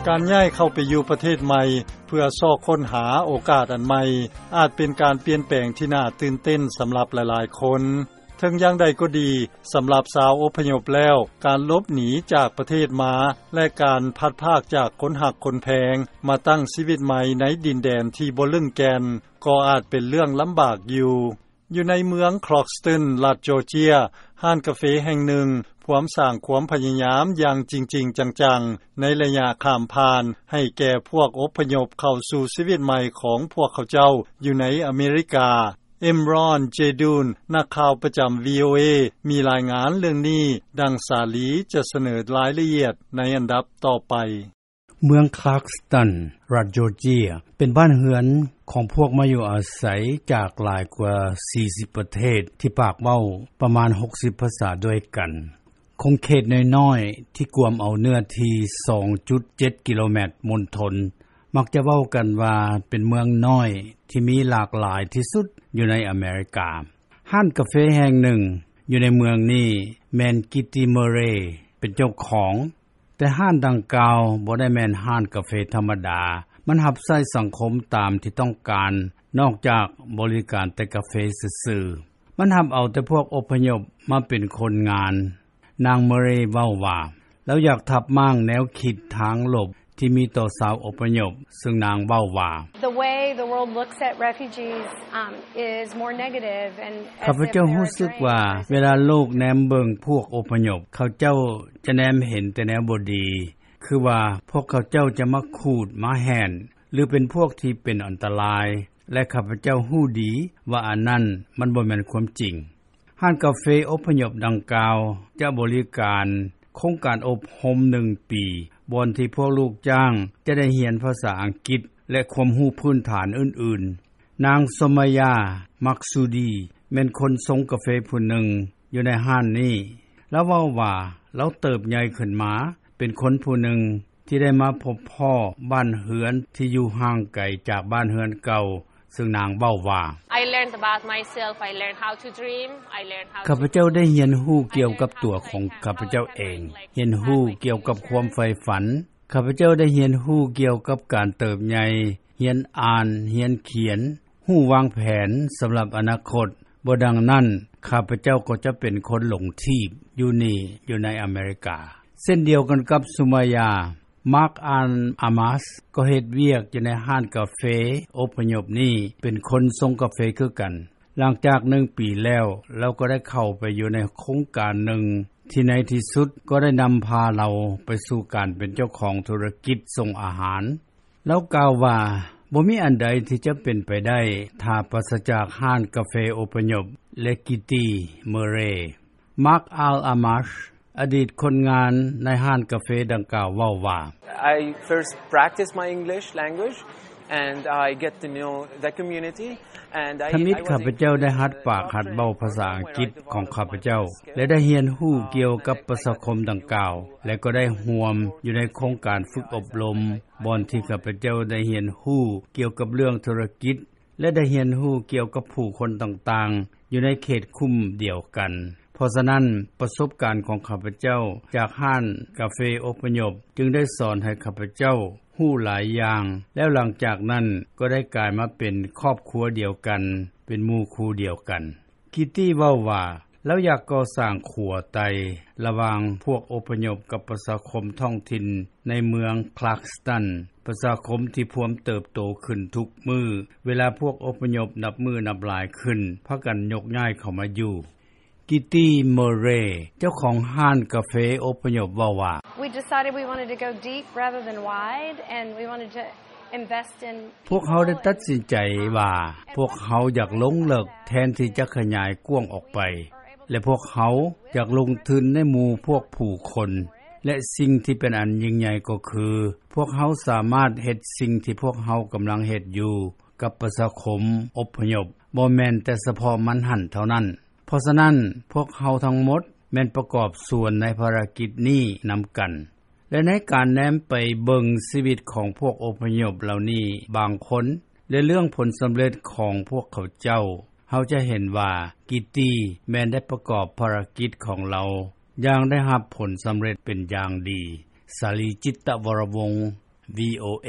ການຍ້າຍເຂົ້າໄປຢູ່ປະເທດໃໝ່ ເພື່ອຊອກຄົ້ນຫາໂອກາດອັນໃໝ່ ອາດເປັນການປ່ຽນແປງທີ່ໜ້າຕື່ນເຕັ້ນສຳລັບຫຼາຍໆຄົນ. ເຖິງຢ່າງໃດກໍດີ, ສຳລັບຊາວອົບພະຍົບແລ້ວ, ການຫຼົບໜີຈາກປະເທດມາ ແລະ ການພັດພາກຈາກຄົນຮັກຄົນແພງ ມາຕັ້ງຊີວິດໃໝ່ໃນດິນແດນທີ່ບໍ່ລຶ້ງແກ່ນ ກໍອາດເປັນເລື່ອງລຳບາກຢູ່. ຢູ່ໃນເມືອງ Clarkston ລັດ Georgia, ຮ້ານກາເຟແຫ່ງໜຶ່ງພວມສ້າງຄວາມພະຍາຍາມຢ່າງຈິງໆຈັງໆ ໃນໄລຍະຂ້າມຜ່ານ ໃຫ້ແກ່ພວກອົບພະຍົບເຂົ້າສູ່ຊີວິດໃໝ່ຂອງພວກເຂົາເຈົ້າຢູ່ໃນອາເມລິກາ. Imran Jadun, ນັກຂ່າວປະຈຳ VOA ມີລາຍງານເລື່ອງນີ້, ດັ່ງສາລີຈະສະເໜີລາຍລະອຽດໃນອັນດັບຕໍ່ໄປ. ເມືອງ Clarkston ລັດ Georgia ເປັນບ້ານເຮືອນຂອງພວກມາຢູ່ອາໄສຈາກຫຼາຍກວ່າສີ່ສິບປະເທດ ທີ່ປາກເວົ້າປະມານຫົກສິບພາສາດ້ວຍກັນ. ຂົງເຂດນ້ອຍໆ ທີ່ກວມເອົາເນື້ອທີ່ສອງຈຸດເຈັດກິໂລແມັດມົນທົນ ມັກຈະເວົ້າກັນວ່າເປັນເມືອງນ້ອຍທີ່ມີຫຼາກຫຼາຍທີ່ສຸດຢູ່ໃນອາເມລິກາ. ຮ້ານກາເຟແຫ່ງໜຶ່ງຢູ່ໃນເມືອງນີ້ແມ່ນ Kitty Murray ເປັນເຈົ້າຂອງ, ແຕ່ຮ້ານດັ່ງກ່າວບໍ່ໄດ້ແມ່ນຮ້ານກາເຟທຳມະດາ, ມັນຮັບໃຊ້ສັງຄົມຕາມທີ່ຕ້ອງການ ນອກຈາກບໍລິການແຕ່ກາເຟຊື່ໆ. ມັນຮັບເອົາແຕ່ພວກອົບພະຍົບມາເປັນຄົນງານ. ນາງ Murray ເວົ້າວ່າ ລາວຢາກທັບມ້າງແນວຄິດທາງລົບທີ່ມີຕໍ່ຊາວອົບພະຍົບ, ເຊິ່ງນາງເວົ້າວ່າ The way the world looks at refugees, um, is more negative and as if they're a drain. ຂ້າພະເຈົ້າຮູ້ສຶກວ່າ ເວລາໂລກແນມເບິ່ງພວກອົບພະຍົບ, ເຂົາເຈົ້າຈະແນມເຫັນແຕ່ແນວບໍ່ດີ, ຄືວ່າພວກເຂົາເຈົ້າຈະມາຂູດ, ມາແຫ້ນ ຫຼື ເປັນພວກທີ່ເປັນອັນຕະລາຍ, ແລະ ຂ້າພະເຈົ້າຮູ້ດີວ່າອັນນັ້ນມັນບໍ່ແມ່ນຄວາມຈິງ. ຮ້ານກາເຟອົບພະຍົບດັ່ງກ່າວຈະບໍລິການໂຄງການອົບຮົມໜຶ່ງປີ, ບ່ອນທີ່ພວກລູກຈ້າງຈະໄດ້ຮຽນພາສາອັງກິດ ແລະ ຄວາມຮູ້ພື້ນຖານອື່ນໆ. ນາງ Somaya Maksudi ແມ່ນຄົນຊົງກາເຟຜູ້ໜຶ່ງຢູ່ໃນຮ້ານນີ້. ລາວເວົ້າວ່າ ລາວເຕີບໃຫຍ່ຂຶ້ນມາເປັນຄົນຜູ້ໜຶ່ງ ທີ່ໄດ້ມາພົບພໍ້ບ້ານເຮືອນທີ່ຢູ່ຫ່າງໄກຈາກບ້ານເຮືອນເກົ່າ, ເຊິ່ງນາງເວົ້າວ່າ I learned about myself, I learned how to dream, I learned how to ຂ້າພະເຈົ້າໄດ້ຮຽນຮູ້ກ່ຽວກັບຕົວຂອງຂ້າພະເຈົ້າເອງ, ຮຽນຮູ້ກ່ຽວກັບຄວາມໃຝ່ຝັນ. ຂ້າພະເຈົ້າໄດ້ຮຽນຮູ້ກ່ຽວກັບການເຕີບໃຫຍ່, ຮຽນອ່ານ, ຮຽນຂຽນ, ຮູ້ວາງແຜນສຳລັບອະນາຄົດ. ບໍ່ດັ່ງນັ້ນ, ຂ້າພະເຈົ້າກໍຈະເປັນຄົນຫຼົງທີບຢູ່ນີ້, ຢູ່ໃນອາເມລິກາ. ເຊັ່ນດຽວກັນກັບ Sumaya, Mark Al Amas ກໍເຮັດວຽກຢູ່ໃນຮ້ານກາເຟອົບພະຍົບນີ້, ເປັນຄົນຊົງກາເຟຄືກັນ. ຫຼັງຈາກໜຶ່ງປີແລ້ວ, ລາວກໍໄດ້ເຂົ້າໄປຢູ່ໃນໂຄງການໜຶ່ງ ທີ່ໃນທີ່ສຸດກໍໄດ້ນຳພາລາວໄປສູ່ການເປັນເຈົ້າຂອງທຸລະກິດສົ່ງອາຫານ. ລາວກ່າວວ່າ, ບໍ່ມີອັນໃດທີ່ຈະເປັນໄປໄດ້ ຖ້າປາສະຈາກຮ້ານກາເຟອົບພະຍົບ ແລະ Kitty Murray. Mark Al Amash, ອະດີດຄົນງານໃນຮ້ານກາເຟດັ່ງກ່າວເວົ້າວ່າ I first practice my English language and I get to know the community and I ທຳອິດ I was ຂ້າພະເຈົ້າໄດ້ຫັດປາກຫັດເວົ້າພາສາອັງກິດຂອງຂ້າພະເຈົ້າ ແລະ ໄດ້ຮຽນຮູ້ກ່ຽວກັບປະຊາຄົມດັ່ງກ່າວ ແລະ ກໍໄດ້ຮ່ວມຢູ່ໃນໂຄງການຝຶກອົບຮົມ ບ່ອນທີ່ຂ້າພະເຈົ້າໄດ້ຮຽນຮູ້ກ່ຽວກັບເລື່ອງທຸລະກິດ ແລະ ໄດ້ຮຽນຮູ້ກ່ຽວກັບຜູ້ຄົນຕ່າງໆ ຢູ່ໃນເຂດຄຸ້ມດຽວກັນ. ເພາະສະນັ້ນ, ປະສົບການຂອງຂ້າພະເຈົ້າຈາກຮ້ານກາເຟອົບພະຍົບ ຈຶ່ງໄດ້ສອນໃຫ້ຂ້າພະເຈົ້າຮູ້ຫຼາຍຢ່າງ, ແລ້ວຫຼັງຈາກນັ້ນກໍໄດ້ກາຍມາເປັນຄອບຄົວດຽວກັນ, ເປັນໝູ່ຄູ່ດຽວກັນ. ຄິດຕີ້ເວົ້າວ່າ ລາວຢາກກໍ່ສ້າງຂົວໄຕ່ລະຫວ່າງພວກອົບພະຍົບກັບປະຊາຄົມທ້ອງຖິ່ນໃນເມືອງ Clarkston, ປະຊາຄົມທີ່ພວມເຕີບໂຕຂຶ້ນທຸກມື້ ເວລາພວກອົບພະຍົບນັບມື້ນັບຫຼາຍຂຶ້ນ ພາກັນຍົກຍ້າຍເຂົ້າມາຢູ່. ກິດຕີ້ ເມີເຣ ເຈົ້າຂອງຮ້ານກາເຟອົບພະຍົບເວົ້າວ່າ We decided we wanted to go deep rather than wide, and we wanted to invest in ພວກເຮົາໄດ້ຕັດສິນໃຈວ່າ ພວກເຮົາຢາກລົງເລິກແທນທີ່ຈະຂະຫຍາຍກວ້າງອອກໄປ ແລະ ພວກເຮົາຢາກລົງທຶນໃນໝູ່ພວກຜູ້ຄົນ ແລະ ສິ່ງທີ່ເປັນອັນຍິ່ງໃຫຍ່ກໍຄື ພວກເຮົາສາມາດເຮັດສິ່ງທີ່ພວກເຮົາກຳລັງເຮັດຢູ່ກັບປະຊາຄົມອົບພະຍົບ ບໍ່ແມ່ນແຕ່ສະເພາະມັນຫັ້ນເທົ່ານັ້ນ. ເພາະສະນັ້ນ, ພວກເຮົາທັງໝົດແມ່ນປະກອບສ່ວນໃນພາລະກິດນີ້ນຳກັນ. ແລະ ໃນການແນມໄປເບິ່ງຊີວິດຂອງພວກອົບພະຍົບເຫຼົ່ານີ້ບາງຄົນ ແລະ ເລື່ອງຜົນສຳເລັດຂອງພວກເຂົາເຈົ້າ, ເຮົາຈະເຫັນວ່າ ກິດຕີ້ ແມ່ນໄດ້ປະກອບພາລະກິດຂອງລາວຢ່າງໄດ້ຮັບຜົນສຳເລັດເປັນຢ່າງດີ. ສາລີ ຈິດຕະວໍລະວົງ ວີໂອເອ